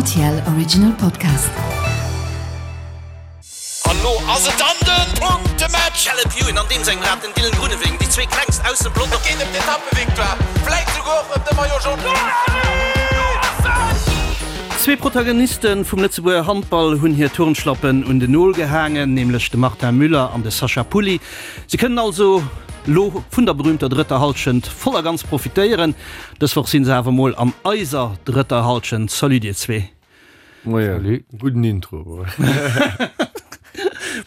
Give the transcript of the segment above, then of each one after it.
RTL Original Podcast. An lo ass et dann den Punktematch! Caleb Ewan an deem sengem Rad, den Dylan Groenewegen, déi zwee klengst aus dem Pelotong. Et geet ëm d'Etappevictoire, vläit souguer och ëm de Maillot Jaune. Zwee Protagoniste vum Lëtzebuerger Handball hunn hir Turnschlappen un den Nol gehaangen, nämlech de Martin Müller an de Sacha Pulli. Si kënnen also lo vun der berüümter drëtter Hallschent voll a ganz profitéieren. Dës Woch sinn se awer mol an eiser drëtter Hallschent. Salut dir zwee. Moien. Salut. Gudden Intro.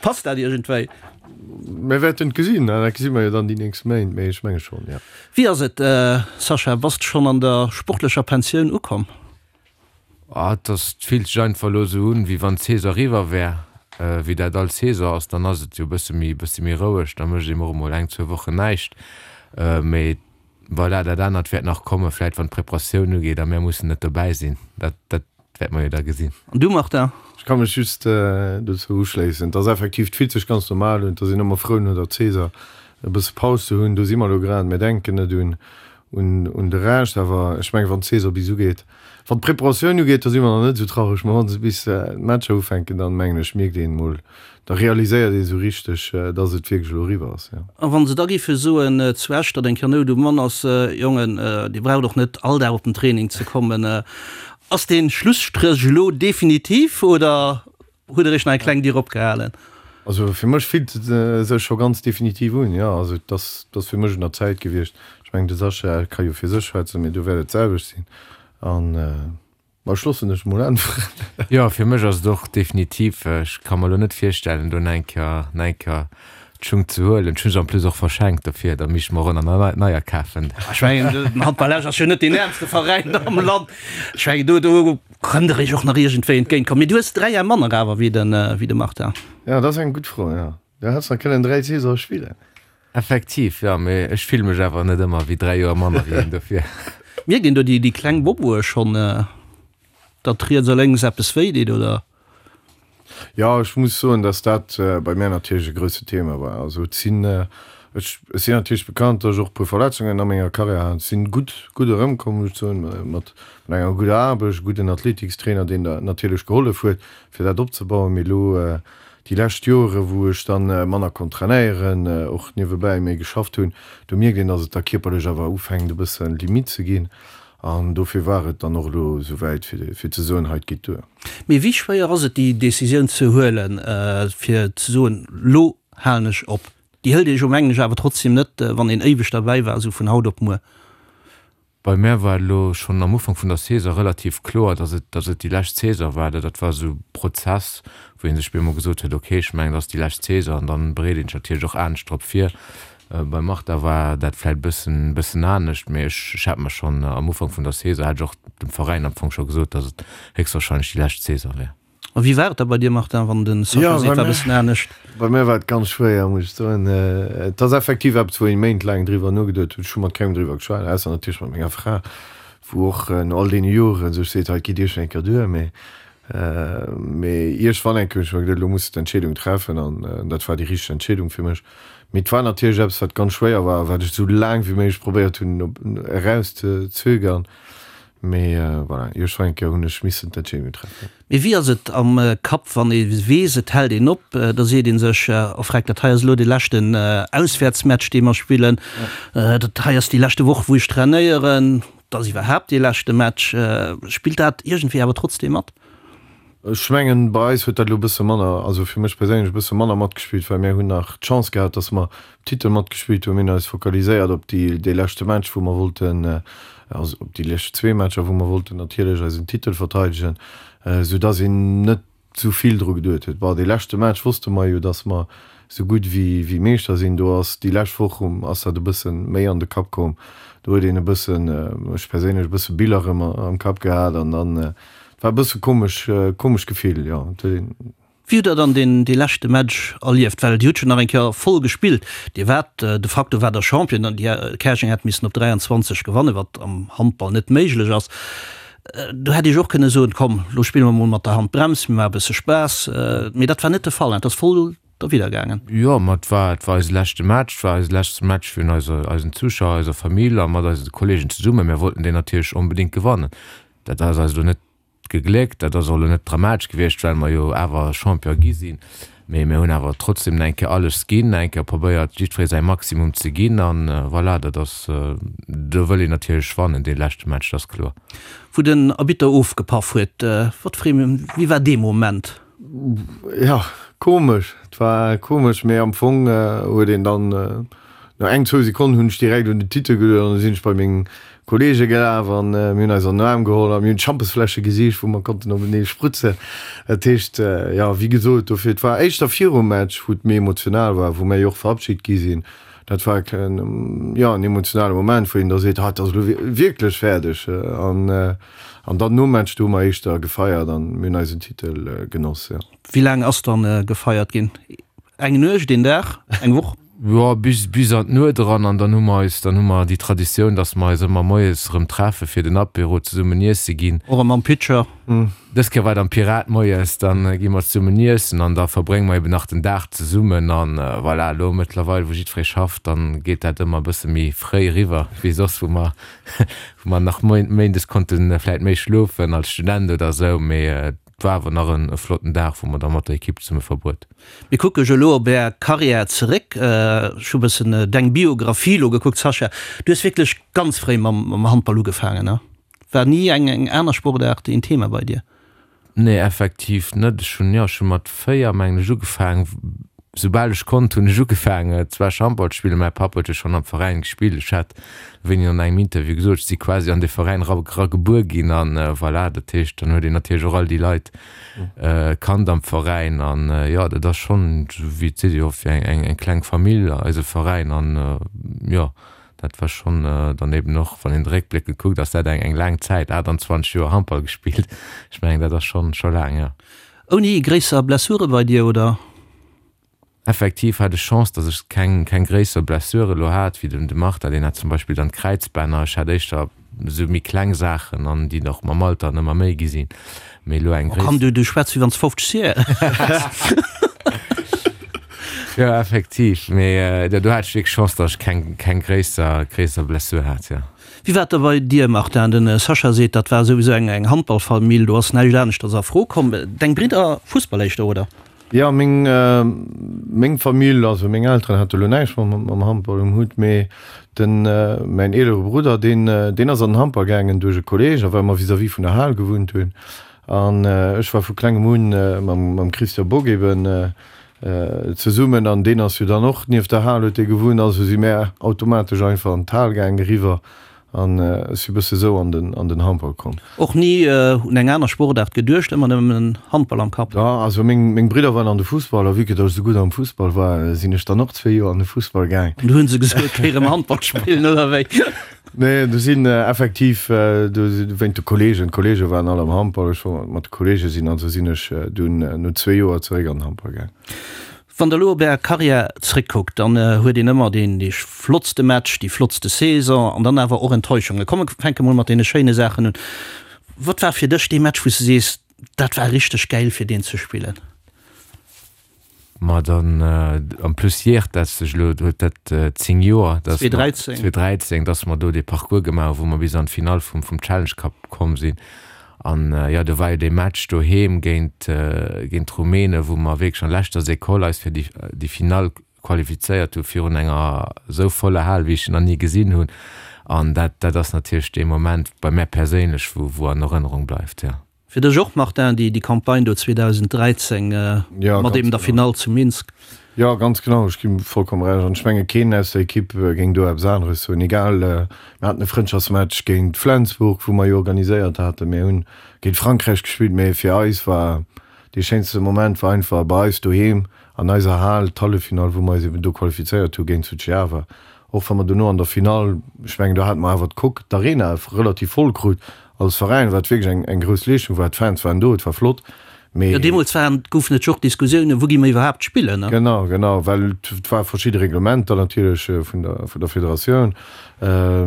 Passt dat iergendwéi? Mir wäerten et gesinn, dat gesi mer jo dann déi nächst Méint, mee ech menge schonn, jo. Wéi ass et, Sascha, bass de schonn an der sportlecher Pensioun ukomm? Ah, et ass, et fillt sech einfach elo esou un, wéi wann d'Saison eriwwer wär. Wéi dat all Saison ass, dann ass et jo e bësse méi, bësse méi roueg, da mécht een och emol eng, zwou Wochen näischt. Mee voilà, dat anert wäert nach kommen, vläit wann d'Preparatioun ugeet a mär mussen net dobäi sinn. Dat, dat wäerte mer jo da gesinn. An du, Martin? Ech ka mech just dozou uschléissen. Et ass effektiv, et fillt sech ganz normal un. Et ass een ëmmer frou no der Saison e bësse Paus ze hunn. Do si mer elo grad. Mir denken net un un de Rescht. Awer ech mengen, wann d'Saison bis ugeet, wann d'Preparatioun ugeet, da si mer nach net esou traureg. Mä wa se bis d'Matcher ufänken, dann mengen ech, mierkt een emol, da realiséiert een esou richteg, dass et wierklech elo eriwwer ass, jo. A wa se da géife soen zu Esch, datt eng Kéier Nout um Mann ass, Jongen, Dir braucht och net all Dag op den Training ze kommen, ass dee Schlusstréch elo definitiv oder Huet Der Iech nach eng kleng Dier opgehalen? Also fir mech fillt et sech scho ganz definitiv un, jo. Also et ass, et ass fir mech un der Zäit gewiescht. Ech mengen, de Sascha ka jo fir sech schwätzen, mee do wäert et d'selwecht sinn. An, ma ech loossen dech emol äntweren. Jo, fir mech ass et och definitiv. Ech ka mer elo net virstellen, do nach eng Kéier, nach eng Kéier d'Schung ze huelen. Ech hu se en plus och verschenkt, dofir da misst ech mer och nach neier kafen. Ech mengen, den Handball Esch ass jo net deen äermste Veräin am Land. Ech mengen, do, do Kënnt der iech och nach iergendwéi entgéint kommen? Mee du hues 3 Jar manner awer wéi de Martin. Jo, dat ass eng gutt Fro, jo. Du häss nach kënnen 3 Saisone spillen. Effektiv, jo, mee ech fille mech awer net ëmmer wéi 3 Joer manner wéi hien, dofir. Mierkt een do déi kleng Boboe schonn, datt riets a lénks eppes wéi deet, oder? Jo, ech muss soen, dass dat bei mär natierlech e grousse Thema war. Also et sinn, ech sinn natierlech bekannt, dass ech och e puer Verletzungen a menger Karriär hat. Ech sinn gutt, gutt erëmkomm, muss ech soen, mat enger gudder Aarbecht, e gudden Athletikstrainer, deen der natierlech gehollef huet, fir dat opzebauen. Mee elo déi lescht Jore wou ech dann manner konnt trainéieren, och niewebäi méi geschafft hunn, do mierkt een, dass et da kierperlech awer ufänkt e bësse Limitt ze ginn. An dofir war et dann och elo esou wäit, fir ze soen, hei, et geet duer. Mee wéi schwéier ass et, déi Decisioun ze huelen, fir ze soen, lo halen ech op? Déi hëlt ee jo, mengen ech, awer trotzdem net, wann een éiweg derbäi war, esou vun haut op muer. Bei mär war et elo schonn am Ufank vun der Saison relativ kloer, dass et, dass et déi lescht Saison war. Dat war esou e Prozess, wou ee sech bemol gesot huet, okay, ech mengen, et ass déi lescht Saison an dann bereet een sech natierlech och anescht drop vir. Beim Martha war dat vläit bëssen bëssen anescht, mee ech ech hat mer schonn am Ufank vun der Saison, hat ech och dem Veräin am Fong scho gesot, datt et héchstwahrscheinlech déi lescht Saison wär. A wéi war et da bei dir, Martin, wann de Sascha seet, war bëssen anescht? Bei mir war et ganz schwéier, muss ech soen. Et ass effektiv eppes, wou een méintlaang driwwer nogeduet huet. Ech hu mat kengem driwwer geschwat, ausser natierlech mat menger Fra, wou och no all deene Joren sech seet, hei, et geet iergendwann eng Kéier duer. Mee Mee iergendwann eng Kéier hunn ech mer geduet, elo muss de d'Entscheedung treffen an dat war déi richteg Entscheedung fir mech. Mee et war natierlech eppes, wat ganz schwéier war a wat ech esou laang wéi méiglech probéiert hunn eraus ze zögern. Mee voilà, iergendwann eng Kéier hunn ech missen d'Entscheedung treffen. Mee wéi ass et am Kapp, wann ee weess, et hält een op? Da seet ee sech, oh freck, dat hei ass elo dee leschten Auswäertsmatch, dee mer spillen, dat hei ass déi leschte Woch, wou ech trainéieren. Et ass iwwerhaapt dee leschte Match. Spillt dat iergendwéi awer trotzdeem mat? Ech mengen, bei eis huet dat elo e bësse manner, also fir mech perséinlech e bësse manner matgespillt, well mir hunn nach d'Chance gehat, datt mer um Titel matgespillt hunn. Mir hunn eis fokaliséiert op déi, dee leschte Match, wou mer wollten, also op déi lescht zwee Matcher, wou mer wollten natierlech eisen Titel verteidegen, soudatt een net sou vill dru geduet huet. Bon, dee leschte Match wosste mer jo, dass mer sou gutt wéi Meeschter sinn. Do ass déi lescht Woch um ass dat e bësse méi an de Kapp komm. Do huet een e bëssen, ech perséinlech, e bësse Biller erëm am Kapp gehat an dann, et war e bësse komesch, komescht Gefill, jo. Et huet een. Wéi hutt Der dann deen, dee leschte Match erlieft? Well Dir hutt jo nach eng Kéier voll gespillt. Dir waart de facto waart Der Champion an déi Käerjeng hätt missen op 23 gewannen, wat am Handball net méiglech ass. Do hätt Dir jo och kënne soen, komm, lo spille mer mol mat der Handbrems, mir maache e bësse Spaass. Mee dat war net de Fall, et ass voll derwidder gaangen. Jo, ma et war, et war eise leschte Match, et war eise leschte Match virun eiser, eisen Zuschauer, eiser Famill a mat eise Kolleegen zesummen. Mir wollten deen natierlech onbedéngt gewannen. Dat ass eis elo net. gegléckt. Dat ass och elo net dramatesch gewiescht, well mer jo awer Champion gi sinn. Mee mir hunn awer trotzdem nach eng Kéier alles ginn, nach eng Kéier probéiert, jiddweree säi Maximum ze ginn. An voilà, dat ass, do wëll een natierlech wannen, dee leschte Match, dat ass kloer. Wou den Arbitter ofgepaff huet, wat fir ee, wéi war dee Moment? Jo, komesch, et war komesch, mee am Fong huet een dann no eng, zwou Sekonnen hunn ech direkt un den Titel geduecht an da sinn ech bei meng Kollege gelaf an mir hunn eis an den Aarm geholl a mir hunn d'Schampesfläsche gesicht, wou mer konnten openee sprutzen. Dat heescht, jo, wéi gesot, dofir, et war éischter virum Match, wou et méi emotional war, wou mir jo och verabschit gi sinn. Dat war jo en emotionale Moment, wou een da seet, ha, et ass elo wierklech fäerdeg. An an dann nom Match, do hu mer éischter gefeiert an mir hunn eisen Titel genoss, jo. Wéi laang ass dann gefeiert ginn? Eng Nuecht, een Dag, eng Woch? Jo, bis, bis an d'Nuet eran. An dann hu mer eis, dann hu mer déi Traditioun, dass mer eis ëmmer moies erëm treffe fir den Apéro zesummen iesse ginn. Och erëm am Pitcher? Dës Kéier war et am Pirat moies. Dann gi mer zesummen iessen an da verbrénge mer eben nach den Dag zesummen. An voilà, elo mëttlerweil, wou jiddweree schafft, dann geet dat ëmmer e bësse méi fréi eriwwer wéi soss, wou mer, wou mer nach méindes konnte vläit méi schlofen als Student oder esou. Mee Et war awer nach en flotten Dag, wou mer da mat der Ekipp zesumme verbruet. Mir kucke jo elo op Är Karriär zeréck. Ech hu bëssen deng Biographie elo gekuckt, Sascha. Du hues wierklech ganz fréi mam Handball ugefaangen, ne? War ni eng aner Sportaart een Thema bei dir? Nee, effektiv net. Ech hunn, jo, ech hu mat 4, mengen ech, ugefaangen. Soubal ech konnt, hunn ech ugefaangen zwar Handball ze spillen. Mäi Papp huet jo schonn am Veräin gespillt. Ech hat wéini an engem Interview gesot, ech si quasi an dee Veräin era era gebuer ginn an voilà, dat heescht, dann huet een natierlech och all déi Leit kannt am Veräin an jo, dat ass schonn, esou wéi et seet, jo wéi eng eng kleng Famill, eise Veräin an jo, dat war schonn dann eben och, wann een réckbléckend kuckt, ass dat eng eng laang Zäit, 28 Joer Handball gespillt, ech mengen dat ass schonn scho laang, jo. Ouni gréisser Blessure bei dir, oder? Effektiv hat ech Chance, dass ech keng keng gréisser Blessure elo hat wéi den de Martha, deen hat zum Beispill dann d'Kräizbänner. Ech hat éischter esou méi kleng Saachen an déi och mam Alter ëmmer méi gi sinn. Mee elo eng Oh komm, du du schwätz wéi wann s 50 Joer häss. Jo effektiv, mee do hat ech wierklech Chance, dass ech keng keng gréisser gréisser Blessure hat, jo. Wéi war et da bei dir, Martin? De Sascha seet, dat war souwisou eng eng Handballfamill, do ass näischt aneschters a Fro komm. Deng Bridder Fussball éischter, oder? Jo, meng, meng Famill, also meng Elteren hate lo näischt mam, mam Handball um Hutt, mee den, mäin eelere Brudder, deen, deen ass an den Handball gaangen duerch e Kolleg, a well mer vis-à-vis vun der Hal gewunnt hunn. An ech war vu klengem un mam, mam Christian Bock eben zesummen, an deen ass jo dann och nieft der Hal huet dee gewunnt, also si mär automatesch einfach an d'Hal gaangen eriwwer. An ech si bësse sou an den an den Handball komm. Och ni un eng aner Sportaart geduecht, ëmmer nëmmen Handball am Kapp? Jo, also meng meng Bridder waren an de Fussball a vue que datt ech sou gutt am Fussball war, sinn ech dann och zwee Joer an de Fussball gaang. An du hunn se gesot, géi rëm Handball spillen, oder wéi? Nee, do sinn effektiv do wéint de Kollegen, d'Kollege waren all am Handball, ech wollt mat de Kollege sinn, also sinn ech dunn no zwee Joer zeréck an den Handball gaang. Wann der elo op är Karriär zréckkuckt, dann huet een ëmmer deen dee flottste Match, déi flottste Saison an dann awer och Enttäuschungen. Komm mir fänke mol mat deene schéine Saachen un. Wat war fir dech dee Match wou s de sees, dat war richteg gäil fir deen ze spillen? Ma dann, en plus jäert dat sech elo, huet dat 10 Joer, dass mer, 2013. 2013, dass mer do dee Parcours gemaach hu wou mer bis an d'Finall vum vum Challenge Cup komm sinn. An jo, do war jo dee Match doheem géint géint d'Rumänen, wou mer wierklech an leschter Sekoll eis fir déi déi Finall qualifizéiert hu virun enger esou voller Hal, wéi ech se nach ni gesinn hunn. An dat dat ass natierlech dee Moment bei mär perséinlech, wou wou an Erënnerung bleift, jo. Fir dech och, Martin, déi déi Campagne do 2013 mat eben der Finall zu Minsk? Jo, ganz genau, ech ginn vollkomm Recht. An ech menge keen aus der Ekipp géing do eppes aneres soen. Egal, mir haten e Frëndschaftsmatch géint Flensburg, wou mer jo organiséiert haten. Mir hunn géint Frankräich gespillt, mee fir eis war dee schéinste Moment war einfach bei eis doheem an eiser Hal d'Halleffinall, wou mer eis eben do qualifizéiert hu géint Suceava. Och wa mer dono an der Finall, ech mengen do hate mer awer d'Coque, d'Arena relativ voll krut als Veräin, wat wierklech eng eng grouss Leeschtung war. D'Fans waren do, et war flott, mee. Jo, deemools waren, goufen et jo och Diskussiounen, wou gi mer iwwerhaapt spillen, ne? Genau, genau, well et ware verschidde Reglementer natierlech vun der vun der Federatioun,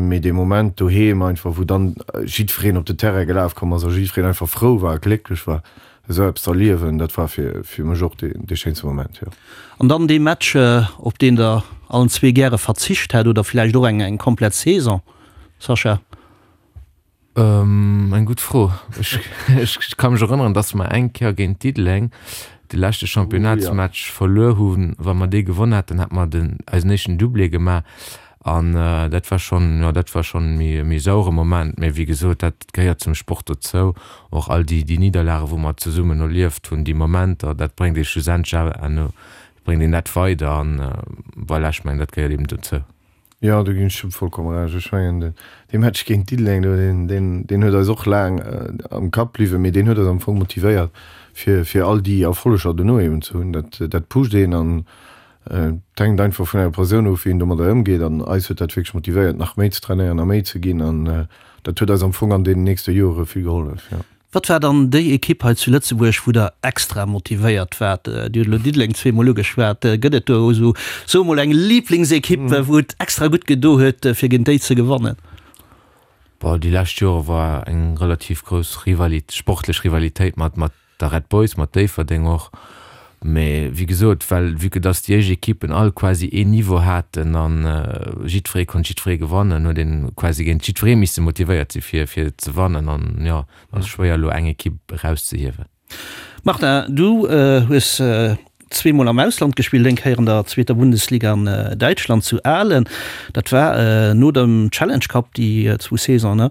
mee dee Moment doheem einfach, wou dann jiddwereen op den Terrain gelaf komm ass a jiddwereen einfach frou war a glécklech war, esou eppes z'erliewen, dat war fir fir mech och dee dee schéinste Moment, jo. An dann dee Match, op deen Der allen zwee gäre verzicht hätt, oder villäicht och eng eng komplett Saison, Sascha? Eng gutt Fro. Ech ka mech erënneren, datt mer eng Kéier géint Diddeleng de leschte Championnatsmatch verluer hunn. Wa mer dee gewonn hätten, hätte mer den eisen éischten Doublé gemaach. An dat war schonn, jo, dat war schonn e méi sauere Moment. Mee wéi gesot, dat gehéiert zum Sport dozou. Och all déi déi Nidderlage wou mer zesummen erlieft hunn, déi Momenter, dat bréngt ee schlussendlech awer, bréngt een dat weider. An voilà, ech mengen, dat gehéiert eben dozou. Jo, do ginn ech dem vollkomme Recht. Ech mengen, dee Match géint Diddeleng do, deen, deen, deen huet eis och laang am Kapp bliwwen, mee deen huet eis am Fong motivéiert, fir, fir all déi Erfolleger dono eben ze hunn. Dat, dat pusht een an et hänkt einfach vun enger Persoun of, wéi een domadder ëmgeet. An eis huet dat wierklech motivéiert, nach méi ze trainéieren a méi ze ginn. An dat huet eis am Fong an deenen nächste Jore vill gehollef, jo. Wat war dann déi Ekipp hei zu Lëtzebuerg, wou Der extra motivéiert waart? Dir hutt elo Diddeleng zweemol ugeschwat. Gëtt et do esou, soe mol, eng Liblingsekipp, wou et extra gutt gedo huet, fir géint déi ze gewannen? Bon, déi lescht Jore war eng relativ grouss Rivalit, sportlech Rivalitéit mat, mat der Red Boys, mat Déifferdeng och. Mee wéi gesot, well vue que dass déi éischt Ekippen all quasi een Niveau haten a jiddweree konnt jiddweree gewannen, huet een quasi géint jiddweree misse motivéiert si fir fir ze wannen. An jo, et ass schwéier elo eng Ekipp erauszehiewen. Martin, du hues zweemol am Ausland gespillt, eng Kéier an der zweeter Bundesliga an Däitschland zu Aalen, dat war no dem Challenge Cup déi zwou Saisonen,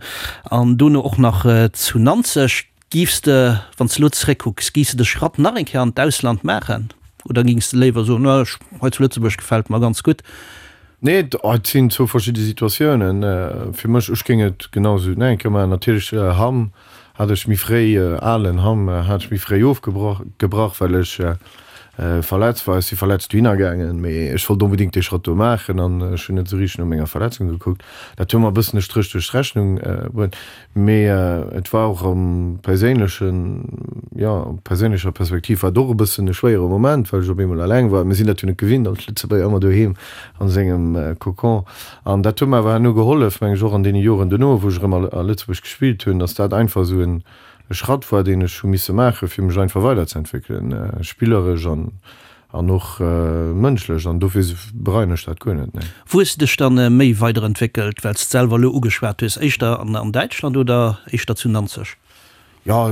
an dono och nach zu Nanzeg. Giffs de, wann s de elo zeréckkucks, giffs de de Schratt nach eng Kéier an d'Ausland maachen oder gings de léiwer soen, no ech, hei zu Lëtzebuerg gefält mer ganz gutt? Nee, et sinn zwou verschidde Situatiounen. Fir mech, ech géing et genau esou nach eng Kéier maachen. Natierlech Hamm hat ech méi fréi, Alen Hamm hat ech méi fréi ofgebrach, gebrach, well ech verletzt war. Ech si verletzt dohinner gaangen, mee ech wollt onbedéngt dee Schratt do maachen an ech hunn net esou richteg no menger Verletzung gekuckt. Dat huet mer e bëssen e Stréch duerch d'Rechnung bruet. Mee et war och am perséinlechen, jo, perséinlecher Perspektiv war et och e bëssen e schwéiere Moment, well ech op eemol eleng war. Mir sinn dat jo net gewinnt als Lëtzebuerger, ëmmer doheem a sengem Cocon. An dat huet mer awer herno gehollef, meng ech, och an deene Joren dono, wou ech erëm a Lëtzebuerg gespillt hunn, datt dat einfach esou e Schratt war, deen ech hu misse maachen, fir mech einfach weiderzeentwéckelen, spilleresch an An och mënschlech, an dofir bereien ech dat guer net, nee. Wou hues de dech dann méi weiderentwéckelt, well s de selwer elo ugeschwat hues, éischter an Däitschland oder éischter zu Nanzeg? Jo,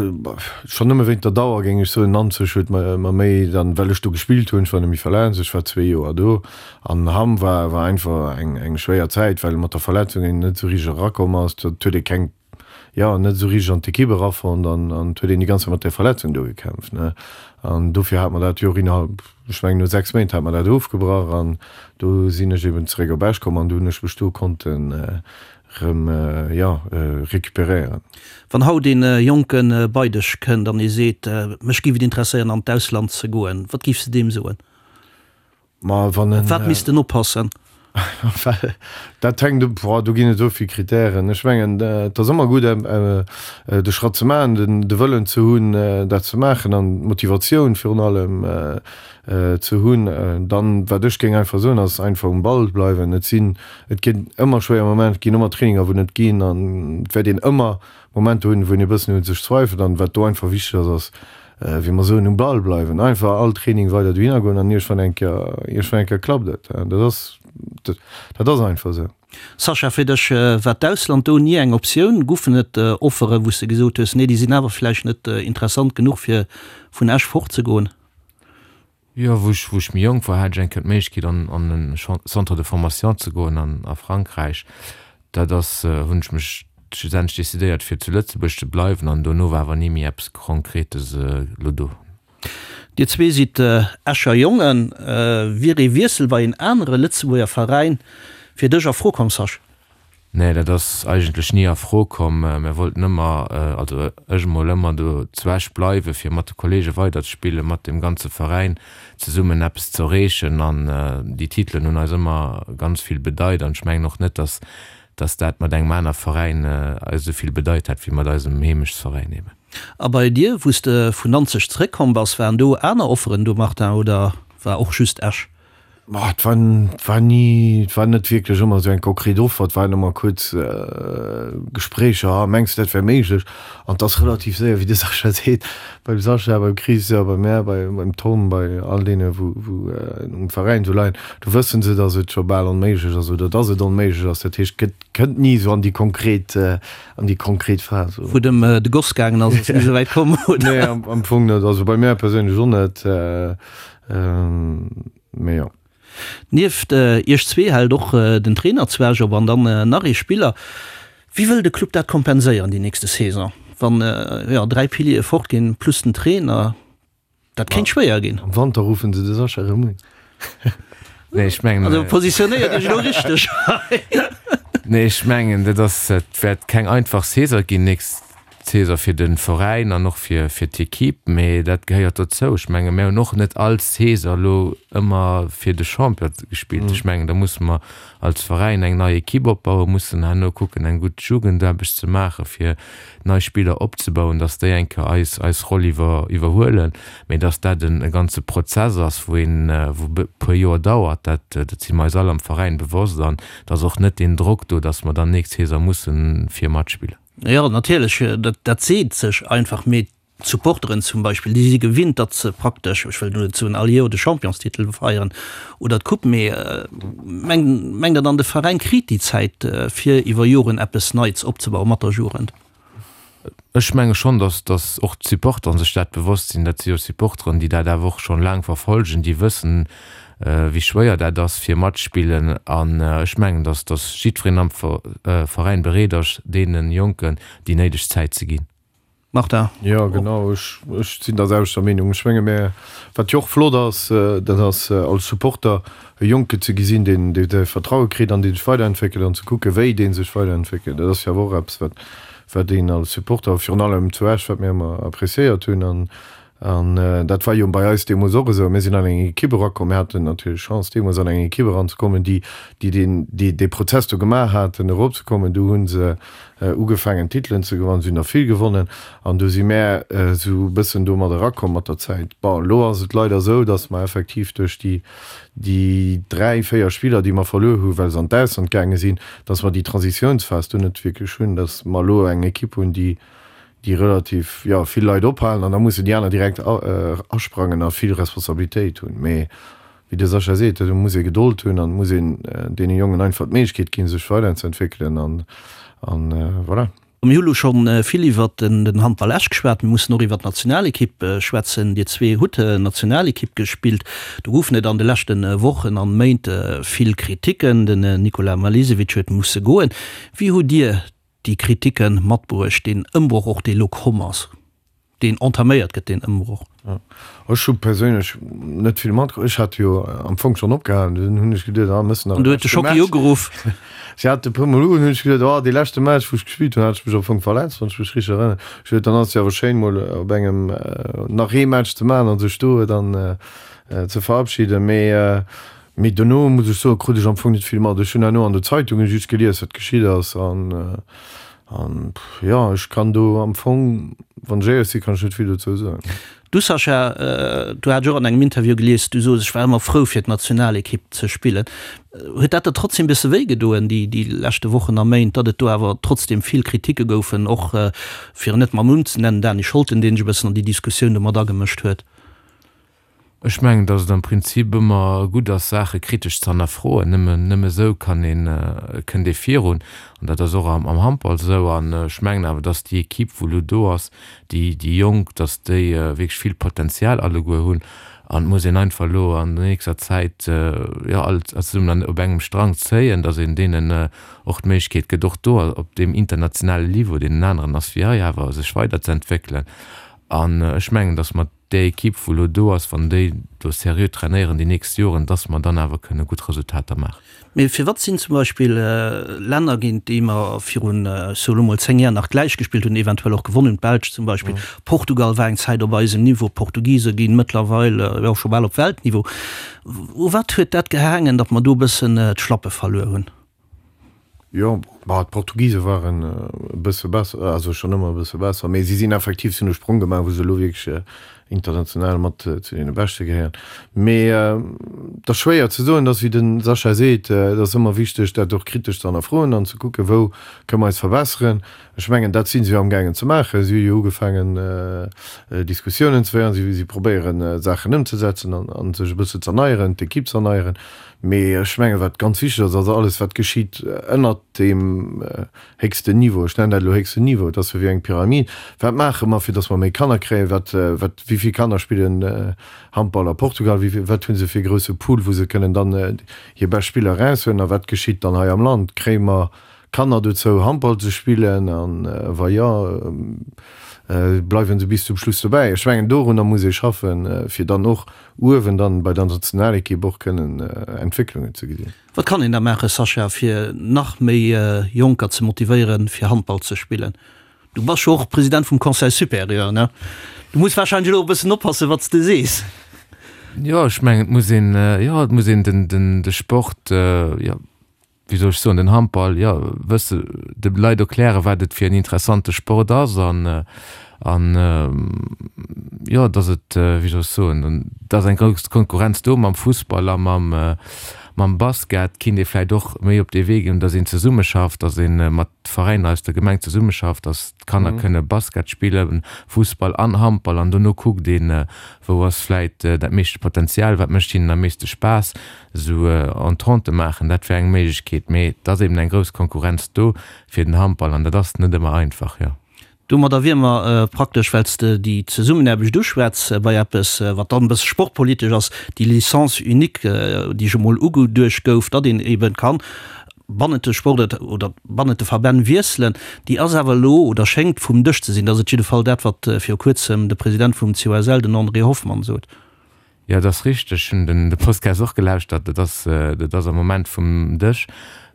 schonn nëmme wéint der Dauer géing ech soen, Nanzeg huet mer méi dann, well ech do gespillt hunn, ech war net méi verletzt, ech war zwee Joer do. An Hamm war war einfach eng eng schwéier Zäit, well mat der Verletzung een net esou richteg erakomm ass, dat huet ee keng jo, net esou richteg an d'Ekipp erafonnt an an et huet een déi ganz Zäit mat där Verletzung do gekämpft, ne. An dofir hat mer dat jo och innerhalb, ech mengen no 6 Méint hat mer dat ofgebrach an do sinn ech eben zeréck op Esch komm an do hunn ech mech do konnten erëm, jo, recuperéieren. Wann haut een Jonke bei dech kënnt an ee seet, mech géif et interesséieren an d'Ausland ze goen, wat géifs de deem soen? Ma wann en. Op wat misst en oppassen? Well dat hänkt, boah, do ginn et esou vill Kritären. Ech mengen, et ass ëmmer gutt, de Schratt ze maachen, den, de Wëllen ze hunn, dat ze maachen an d'Motivatioun virun allem ze hunn. Dann, wat ech géing einfach soen, ass einfach um Ball bleiwen. Et sinn, et ginn ëmmer schwéier Momenter, et ginn ëmmer Traininger, wou net ginn an et wäert een ëmmer Momenter hunn, wou een e bëssen un sech zweifelt. An wat do einfach wichteg ass, ass, wéi mer soen, um Ball bleiwen, einfach all Training weider dohinner goen an iergendwann eng Kéier, iergendwann eng Kéier klappt et. Dat ass, dat ass einfach esou. Sascha, fir dech war d'Ausland do ni eng Optioun? Goufen et Offeren, wou s de gesot hues, nee, déi sinn awer vläicht net interessant genuch, fir vun Esch fortzegoen? Jo, wou ech, wou ech méi jonk war, hat ech eng Kéier d'Méiglechkeet an, an en Centre de formation ze goen an, a Frankräich. Dat ass, hunn ech mech schlussendlech decidéiert fir zu Lëtzebuerg ze bleiwen an dono war awer ni méi eppes Konkretes elo do. Dir zwee sidd Escher Jongen. Wier ee Wiessel bei een anere Lëtzebuerger Veräin fir dech a Fro komm, Sascha? Nee, dat ass eigentlech ni a Fro komm. Mir wollten ëmmer, also ech emol, ëmmer do zu Esch bleiwen, fir mat de Kollege weiderzespillen, mat dem ganze Veräin zesummen eppes ze erreechen. An déi Titelen hunn eis ëmmer ganz vill bedeit. An ech mengen och net, dass, dass dat mat engem aner Veräin eis esou vill bedeit hätt, wéi mat eisem Heemechtsveräin eben. A bei dir, wou s de vun Nanzeg zeréckkomm bass, waren do aner Offeren do, Martin, oder war och just Esch? Ma et war, et war ni, et war net wierklech ëmmer esou eng konkret Offer, et waren ëmmer kuerz Gespréicher, ah mengs de dat wär méiglech? An et ass relativ séier, wéi de Sascha seet, beim Sascha, beim Chris, bei mär, bei beim Tom, bei all deene wou wou um Veräin esou leien, do wësse se, datt et scho bal onméiglech ass oder datt et onméiglech ass. Dat heescht, et gëtt, kënnt ni esou an déi konkret, an déi konkret Phas. Wou et ëm de Goss gaangen ass, ass et ni esou wäit komm, oder? Nee, am Fong net. Also bei mär perséinlech och net. Mee jo. Nieft iech zwee hält och den Trainer zu Esch op an dann nach ee Spiller. Wéi wëll de Club dat kompenséieren déi nächste Saison, wann jo 3 Piliere fort ginn plus den Trainer? Dat kéint schwéier ginn. Am Wanter ruffen se de Sascha erëm un. Nee, ech mengen. Also positionéiert iech elo richteg hei. Nee, ech mengen dat ass, et wäert keng einfach Saison ginn nächst Saison fir de Veräin an och fir fir d'Equipe, mee dat gehéiert dozou. Ech menge mir hunn och net all Saison elo ëmmer fir de Champion gespillt. Ech mengen da musse mer als Veräin eng nei Equipe opbauen, mussen herno kucken eng gutt Jugendaarbecht ze maache fir nei Spiller opzebauen, datt déi eng Kéier eis eis Roll iwwer iwwerhuelen. Mee datt dat en e ganze Prozess ass, wou een wou e puer Joer dauert, dat dat si mer eis all am Veräin bewosst an et ass och net deen Drock do, datt mer dann nächst Saison mussen fir matspillen. Jo, natierlech, dat seet sech einfach, mee d'Supporteren zum Beispill, déi si gewinnt, datt se praktesch, ech wëll elo net soen all Joer de Championstitel feieren oder d'Coupe, mee mengt Der dann, de Veräin kritt déi Zäit, fir iwwer Joren eppes Neits opzebauen mat der Jugend? Ech menge schonn, datt datt och d'Supporteren sech dat bewosst sinn. Dat si jo Supporteren, déi dat awer och schonn laang verfolgen, déi wëssen, wéi schwéier dat ass fir matspillen. An ech mengen, datt datt jiddwereen am Veräin bereet ass, deene Jonken déi néideg Zäit ze ginn. Martin? Jo, genau, ech ech sinn der selwechter Meenung. Ech menge mir, wat jo och flott ass, dat ass als Supporter e Jonke ze gesinn, deen dee säi Vertraue kritt an dee sech weiderentwéckelt an ze kucke wéi dee sech weiderentwéckelt. Dat ass jo awer och eppes, wat wat een als Supporter, virun allem zu Esch, wat mir ëmmer appreciéiert hunn an An dat war jo bei eis deemools och esou. Mir sinn an eng Ekipp erakomm, mir haten natierlech Chance deemools an eng Ekipp eranzekommen, déi déi deen déi dee Prozess do gemaach haten eropzekommen. Du hu se ugefaangen Titelen ze gewannen, si hunn der vill gewonnen an du si mär esou e bëssen do mat erakomm mat der Zäit. Bon, elo ass et leider esou, datt mer effektiv duerch déi déi 3, 4 Spiller déi mer verluer hu well se an d'Ausland gaange sinn, datt mer déi Transitiounsphas do net wierklech hunn, datt mer elo eng Ekipp hunn, déi déi relativ, jo, vill Leit ophalen an da mussen déi aner direkt asprangen a vill Responsabilitéit hunn. Mee wéi de Sascha seet, do muss ee Gedold hunn an et muss een deene Jongen einfach d'Méiglechkeet ginn, sech weiderzeentwéckelen an, an voilà. Mir hu lo scho vill iwwert den Handball Esch geschwat. Mir mussen och iwwert d'Nationalekipp schwätzen. Dir zwee hutt Nationalekipp gespillt. Do goufen et an de leschte Wochen an Méint vill Kriticken. Den Nikola Malisevic huet musse goen. Wéi hutt Dir déi Kriticken matbruecht, deen Ëmbroch och, dee lo komm ass, deen entaméiert gëtt, deen Ëmbroch? Ech hu perséinlech net vill matkritt. Ech hat jo am Fong schonn opgehalen. Dunn hunn ech geduet, ah, mëss nach e leschte Match. An du huet de Schocki ugeruff. Si hat e puer Mol ugeruff, hunn ech geduet, oh, dee leschte Match, wou ech gespillt hunn, hat ech mech am Fong verletzt, wann ech mech richteg erënneren. Ech huet, dann ass et jo awer schéin, mol op engem nach ee Match ze maachen a sech do dann ze verabschieden. Mee Mee dono, muss ech soen, krut ech am Fong net vill mat. Ech hunn herno an de Zeitunge just gelies, wat geschitt ass. An, an jo, ech kann do am Fong, wann ech éierlech sinn, kann ech net vill dozou soen. Du Sascha, du hat ech och an engem Interview gelies, du sos, ech war ëmmer frou fir d'Nationalekipp ze spillen. Huet dat der trotzdem e bësse wéi gedoen, déi, déi leschte Wochen a Méint, datt et do awer trotzdem vill Kriticke goufen, och, fir en net mam Numm ze nennen, Dany Scholten, deen sech e bëssen an déi Diskussioun do mat agemëscht huet? Ech mengen, datt et am Prinzip ëmmer gutt ass, Saache kritesch ze hannerfroen. Nëmme, nëmme esou kann een, kënnt ee virun. An dat ass och am, am Handball esou. An ech mengen awer, datt déi Equipe, wou elo do ass, déi, déi Jonk, datt déi wierklech vill Potenzial alleguer hunn. An et muss een einfach elo an der nächster Zäit, jo, all zesummen an, op engem Strang zéien, datt een deenen och d'Méiglechkeet gëtt, och do op deem internationalen Niveau, deen en aneren ass wéi hei, awer sech weiderzeentwéckelen. An ech mengen, datt mer Déi Equipe wou elo do ass, wann déi do seriö trainéieren déi nächst Joren, dass mer dann awer kënne gutt Resultater maachen. Mee firwat sinn zum Beispill Länner, géint déi mer virun, ech soe lo mol, 10 Jar nach gläich gespillt hunn, eventuell och gewonnen hunn, d'Belsch zum Beispill, Portugal war eng Zäit op eisem Niveau, d'Portugise ginn mëttlerweil jo scho bal op Weltniveau. U wat huet dat gehaangen, datt mer do e bëssen d'Schlappe verluer hunn? Jo, bah, d'Portugise waren e bësse besser, also schonn ëmmer e bësse besser, mee si sinn effektiv, si hunn e Sprong gemaach, wou se elo wierklech. international mat zu deene Beschte gehéieren. Mee et ass schwéier ze soen, et ass wéi de Sascha seet, et ass ëmmer wichteg dat och kritesch ze hannerfroen an ze kucken, wou kënne mer eis verbesseren. Ech mengen, dat si se jo amgaangen ze maachen. Si hu jo ugefaangen Diskussiounen ze féieren, si probéieren Saachen ëmzesetzen an sech e bësse z'erneieren, d'Ekipp z'erneieren. Mee ech mengen, wat ganz wichteg ass, ass alles wat geschitt ënnert deem héchsten Niveau, ech nennen dat elo héchsten Niveau, et ass jo wéi eng Pyramid, wat maache mer, fir datt mer méi Kanner kréien, wat, wat, wéi vill Kanner spillen Handball a Portugal, wéi vill, wat hu se fir e grousse Pool, wou se kënnen dann hir bescht Spiller eraushuelen a wat geschitt dann hei am Land, kréie mer Kanner dozou Handball ze spillen a wa jo, bleiwe se bis zum Schluss dobäi? Ech mengen dorunner muss ee schaffen, fir dann och uewen dann bei der Nationalekipp och kënnen Entwécklungen ze gesinn. Wat kann een da maachen, Sascha, fir nach méi Jonker ze motivéieren, fir Handball ze spillen? Du bass jo och President vum Conseil supérieur, ne? Du muss warscheinlech elo e bëssen oppassen, wat s de sees. Jo, ech mengen, et muss een, jo, et muss een den, den, de Sport, jo, wéi soll ech soen, den Handball, jo, wësse, de Leit erklären, wat et fir en interessante Sport ass an, an, jo, datt et, wéi soll ech soen, et ass eng grouss Konkurrenz do mam Fussball a mam, mam Basket, kinnt ee vläicht och méi op dee Wee ginn, datt een zesummeschafft, datt ee mat Veräiner aus der Gemeng zesummeschafft, datt d'Kanner kënne Basket spillen, Fussball an Handball an dono kuckt een, wou ass vläicht dat meeschte Potenzial, wat mécht hinnen am meeschte Spaass. Esou Entente maachen, dat wär eng Méiglechkeet, mee et ass eben eng grouss Konkurrenz do fir den Handball an dat ass net ëmmer einfach, jo. Domadder wier mer praktesch, well s de déi Zesummenaarbecht uschwätz, bei eppes, wat dann e bësse sportpolitesch ass, déi Licence unique, déi ech emol ugeduecht gouf, datt een eben kann bannent de Sport oder bannent de Verbänn wiesselen, déi ass awer elo oder schéngt vum Dësch ze sinn. Dat ass et jidde Fall dat, wat viru kuerzem de President vum COSL, den André Hoffmann, sot. Jo, dat ass richteg. Ech hunn den de Podcast och gelauschtert. Dat ass, dat ass am Moment vum Dësch,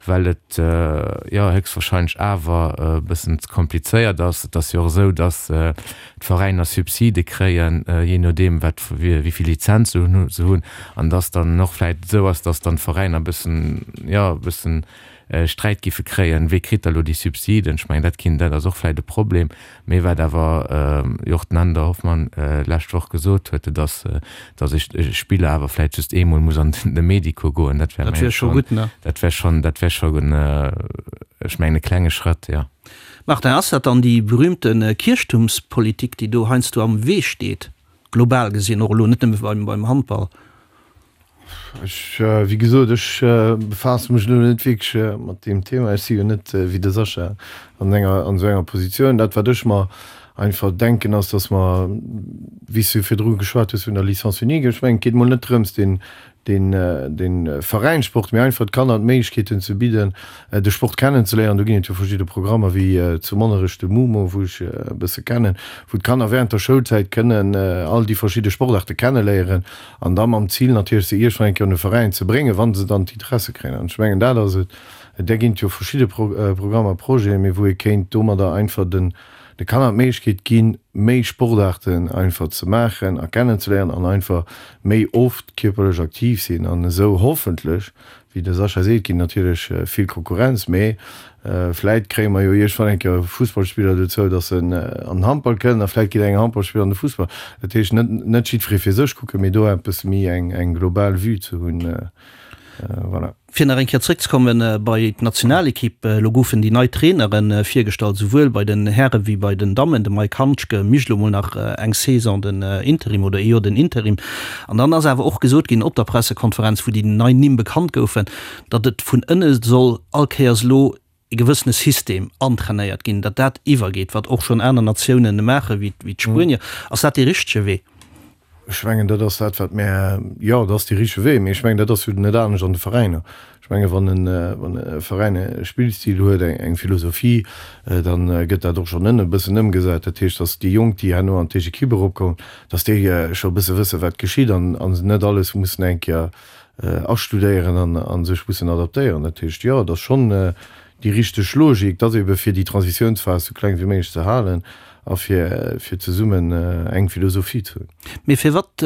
well et jo héchstwahrscheinlech awer e bëssen ze komplizéiert ass. Et ass jo och esou, datt d'Veräiner Subside kréien, jee nodeem wat, wéi vill Lizenz se hunn, se hunn. An datt dann och vläicht esou ass, datt dann d'Veräiner e bëssen, jo, e bëssen Sträit giffe kréien, wee kritt da lo déi Subsiden? Ech mengen, dat kinnt, dat ass och vläicht e Problem. Mee wat awer jo och den Änder Hoffmann d'lescht Woch gesot huet, dat ass, datt e Spiller awer vläicht just eemol muss an de Medico goen. Dat wär, mengen ech, schonn, dat wär schonn, dat wär schonn, ech mengen, e klenge Schrëtt, jo. Martin, ass dat dann déi berühmte Kierchtumspolitik, déi do heiansdo am Wee steet, global gesinn, och elo net nëmme beim Handball? Ech, wéi gesot, ech befaasse mech elo net wierklech mat deem Thema. Ech si jo net wéi de Sascha an enger, an esou enger Positioun. Dat, wat ech mer einfach denken, ass, datt mer, wéi s du virdru geschwat hues vun der Licence unique, ech mengen, et geet mol net drëms, deen, deen, dee Veräinssport, mee einfach d'Kanner d'Méiglechkeeten ze bidden, de Sport kennenzeléieren. Do ginn et jo verschidde Programmer, wéi zu Monnerech de MUMO, wou ech e bësse kennen, wou d'Kanner während der Schoulzäit kënnen all déi verschidde Sportaarte kenneléieren. An da mam Zil natierlech, se iergendwann eng Kéier un e Veräin ze bréngen, wa se dann d'Interesse kréien. An ech mengen, dat ass et. Där ginn et jo verschidde Programmer, Projeten, mee wou ee kéint domadder einfach den de Kanner d'Méiglechkeet ginn, méi Sportaarten einfach ze maachen a kennenzeléieren an einfach méi oft kierperlech aktiv sinn an esou hoffentlech Wéi de Sascha seet, ginn natierlech vill Konkurrenz, mee vläit kréie mer jo iergendwann eng Kéier Fussballspiller dozou, datt se an den Handball kënnen a vläit geet eng Handballspiller an de Fussball. Dat heescht, net net jiddweree fir sech kucken, mee do eppes méi eng eng global Vue ze hunn. Voilà. Fir nach eng Kéier zréckzekomme bei d'Nationalekipp, Elo goufen déi nei Trainere virgestallt, souwuel bei den Häre wéi bei den Dammen. De Mike Handschke mécht elo mol nach eng Saison den Interim oder ee Joer den Interim. An dann ass awer och gesot ginn op der Pressekonferenz, wou déi nei Nimm bekannt goufen, datt et vun ënne soll all Kéiers elo e gewëssene System antrainéiert ginn, datt dat iwwergeet, wat och schonn aner Natiounen maachen, wéi d'Spuenier. Ass dat dee richtege Wee? Ech mengen, dat ass dat, wat mär, jo, dat ass dee richtege Wee, mee ech mengen, dat ass jo net anescht an de Veräiner. Ech menge wann e Veräin e Spillstil huet, eng Philosophie, da gëtt dat och schonn ënne e bëssen ëmgesat. Dat heescht, datt déi Jonk, déi herno an d'éischt Equipe eropkommen, datt déi scho e bësse wësse wat geschitt an se net alles mussen eng Kéier astudéieren a sech mussen adaptéieren. Dat heescht, jo, et ass schonn déi richteg Logik, datt ebe fir déi Transitiounsphas esou kleng wéi méiglech ze halen a fir zesummen eng Philosophie ze hunn. Mee firwat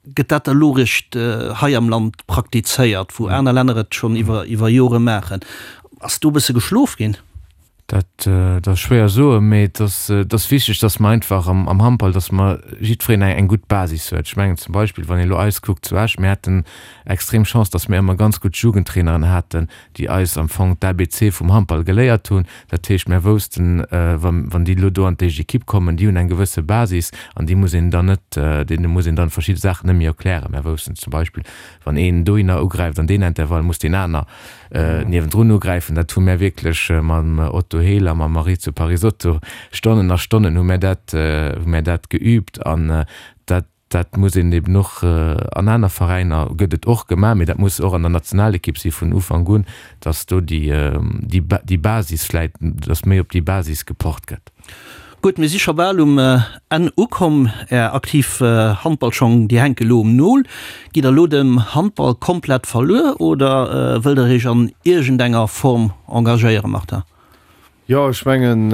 Gëtt dat da lo réischt hei am Land praktizéiert, wou aner Länner et schonn iwwer iwwer Jore maachen? Ass do e bësse geschlof ginn? Dat ass schwéier soen, mee et ass, et ass wichteg, dass mer einfach am, am Handball, dass mer jiddwereen eng, eng gutt Basis huet. Ech mengen zum Beispill, wann ee elo eis kuckt zu Esch, mir haten extrem Chance, dass mir ëmmer ganz gutt Jugendtraineren haten, déi eis am Fong d'ABC vum Handball geléiert hunn. Dat heescht, mir woussten, wann, wann déi elo do an d'éischt Ekipp kommen, déi hunn eng gewësse Basis an déi muss een dann net, deene muss een dann verschidde Saachen net méi erklären. Mir woussten zum Beispill, wann een dohinner ugräift an deen Intervall, muss deen aner niewendrun ugräifen. Dat hu mär wierklech mam Otto Hehl a mam Maurizio Parisotto Stonnen a Stonnen hu mär dat, hu mär dat geübt an dat, dat muss een eben och an aner Veräiner gëtt et och gemaach, mee dat muss och an der Nationalekipp si vun Ufank un, datt do déi, déi, déi Basis vläit, datt méi op déi Basis gepocht gëtt. Gutt, mir si scho bal um Enn ukomm. Är aktiv Handballschong, déi hänke lo um Nol. Gitt der lo dem Handball komplett verluer oder wëllt der iech an iergendenger Form engagéieren, Martin? Jo, ech mengen,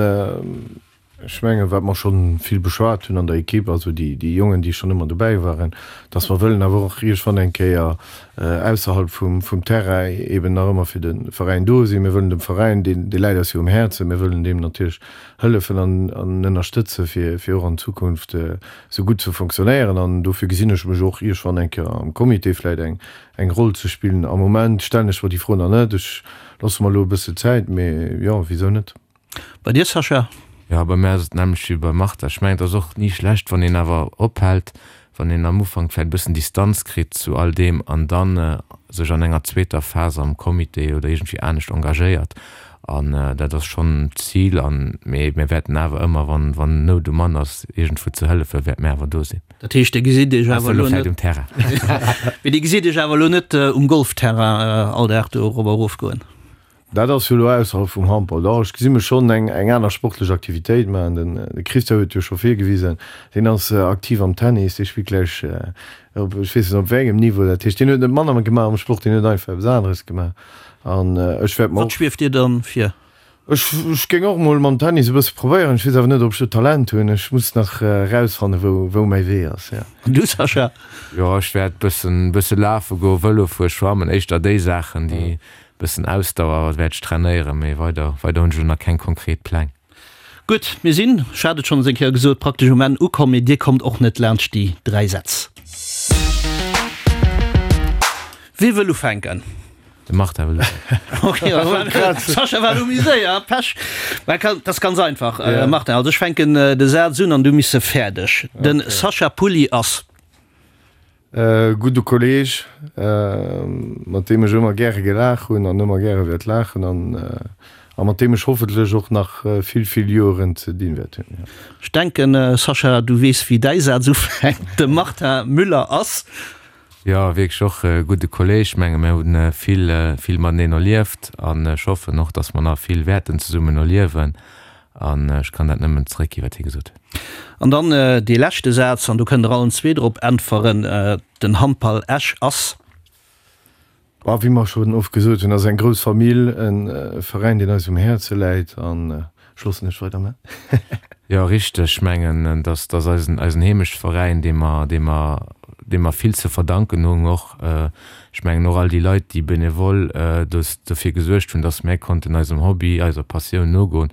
ech mengen, wat mer schonn vill beschwat hunn an der Ekipp, also déi, déi Jongen, déi schonn ëmmer dobäi waren, dass mer wëllen awer och iergendwann eng Kéier ausserhalb vum, vum Terrain eeben nach ëmmer fir de Veräin do sinn. Mir wëllen dem Veräin, deen, dee läit eis jo um Häerzen, mir wëllen deem natierlech hëllefen an an ënnerstëtze fir fir och an Zukunft esou gutt ze fonctionnéieren an dofir gesinn ech mech och iergwann eng Kéier am Comité vläit eng eng Roll ze spillen. Am Moment stellen ech mer déi Fro nach net, ech loosse mer elo e bësse Zäit, mee jo, wisou net. Bei dir Sascha? Jo, bei mär ass et d'nämmlecht wéi beim Martha. Ech mengen et ass och ni schlecht wann een awer ophält, wann een am Ufank vläicht e bëssen Distanz kritt zu all deem an dann sech an enger zweeter Phas am Comité oder iergendwéi anescht engagéiert. An dat ass schonn d'Zil. An, mee mir wäerten awer ëmmer, wann, wann Nout um Mann ass, iergendwou ze hëllefen, wäerte mir awer do sinn. Dat heescht, Dir gesitt Iech awer elo net um Terrain. Mee Dir gesitt Iech awer elo net um Golfterrain all Dag do erop a erof goen? Dat ass jo elo ausserhalb vum Handball. Dach, ech gesi mech schonn eng eng aner sportlech Aktivitéit maachen. Den de Christian huet jo scho virgewisen, deen ass aktiv am Tennis, dee spillt gläich op ech weess net op wéi engem Niveau. Dat heescht, deen huet net manner gemaach am Sport, deen huet einfach eppes aneres gemaach. An ech wäert mer och. Wat schwieft dir dann vir? Ech ech géing och mol mam Tennis e bësse probéieren. Ech weess awer net, ob ech do Talent hunn. Ech muss nach erausfannen, wou wou mäi Wee ass, jo. An du, Sascha? Jo, ech wäert bëssen bësse lafe goen, Vëlo fueren, schwammen, éischter déi Saachen, déi Bëssen Ausdauer wäert ech trainéieren, mee weider weider hunn ech elo nach keng konkret Pläng. Gutt, mir sinn, ech hat et schonns eng Kéier gesot, praktesch um Enn ukomm, mee Dir kommt och net laanscht déi 3 Sätz. Wie wëll ufänken? De Martin wëll ufänken. Ok, Sascha war elo méi séier, Pech. Mä dat ass ganz einfach, Martin, also ech fänken de Saz un an du miss e fäerdeg. De Sascha Pulli ass. E gudde Kolleg, mat deem ech ëmmer gäre gelaach hunn an ëmmer gäre wäert laachen an a mat deem ech hoffentlech och nach vill, vill Joeren ze dinn wäert hunn. Ech denken, Sascha, du weess, wéi däi Saz ufänkt. De Martin Müller ass. Jo, wierklech och e gudde Kolleg. Ech menge mir hunn vill, vill mateneen erlieft an ech hoffen och, dass mer nach vill wäerten zesummen erliewen. An ech kann dat nëmmen zeréckginn, wat hie gesot huet. An dann dee leschte Saz, an do kënnt Der allen zwee drop äntweren, Den Handball Esch ass. A wéi mer schonn oft gesot hunn, ass eng grouss Famill, e Veräin, deen eis um Häerze läit. An ech loossen dech weiderman. Jo, richteg. Ech mengen, dass ass eisen, eisen Heemechtveräin, dee mer, dee mer, deem mer vill ze verdanken hunn och. Ech mengen och all déi Leit, déi benevol dofir gesuergt hunn, dass mär konnten eisem Hobby, eiser Passioun nogoen.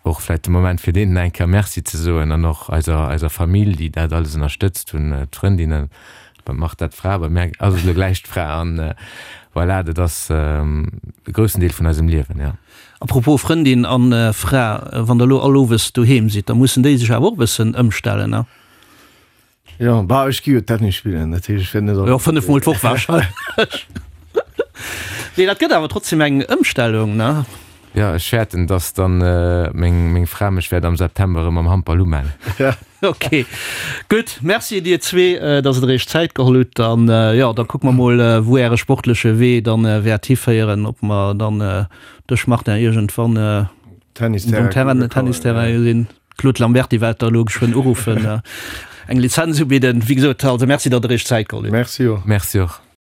Och vläit de Moment fir deenen eng Kéier Merci ze soen an och eiser eiser Famill, déi dat alles ënnerstëtzt hunn, d'Frëndinnen, beim Martha d'Fra, bei mär ass et elo gläich d'Fra an voilà, dat ass e groussen Deel vun eisem Liewen, jo. A propos Frëndin an Fra, wann der elo all owes doheem sidd, da mussen déi sech awer och e bëssen ëmstellen, ne? Jo, bah, ech gi jo Tennis spillen, dat heescht, ech wäert net all. Jo, 5 mol d'Woch wahrscheinlech. Nee, dat gëtt awer trotzdem eng Ëmstellung, ne? Jo, ech fäerten, dass dann meng, meng Fra mech wäert am September erëm am Handball umellen. Ok, gutt. Merci dir zwee, dass der iech Zäit geholl hutt. An jo, da kucke mer mol, wou äre sportleche Wee dann wäert hiféieren, ob mer dann dech, Martin, iergendwann um Terrain, Tennisterrain gesinn. Claude Lamberty wäert der elo geschwënn uruffen, eng Lizenz ubidden. Wéi gesot, also Merci, datt Der Iech Zäit geholl hutt. Merci och. Merci och.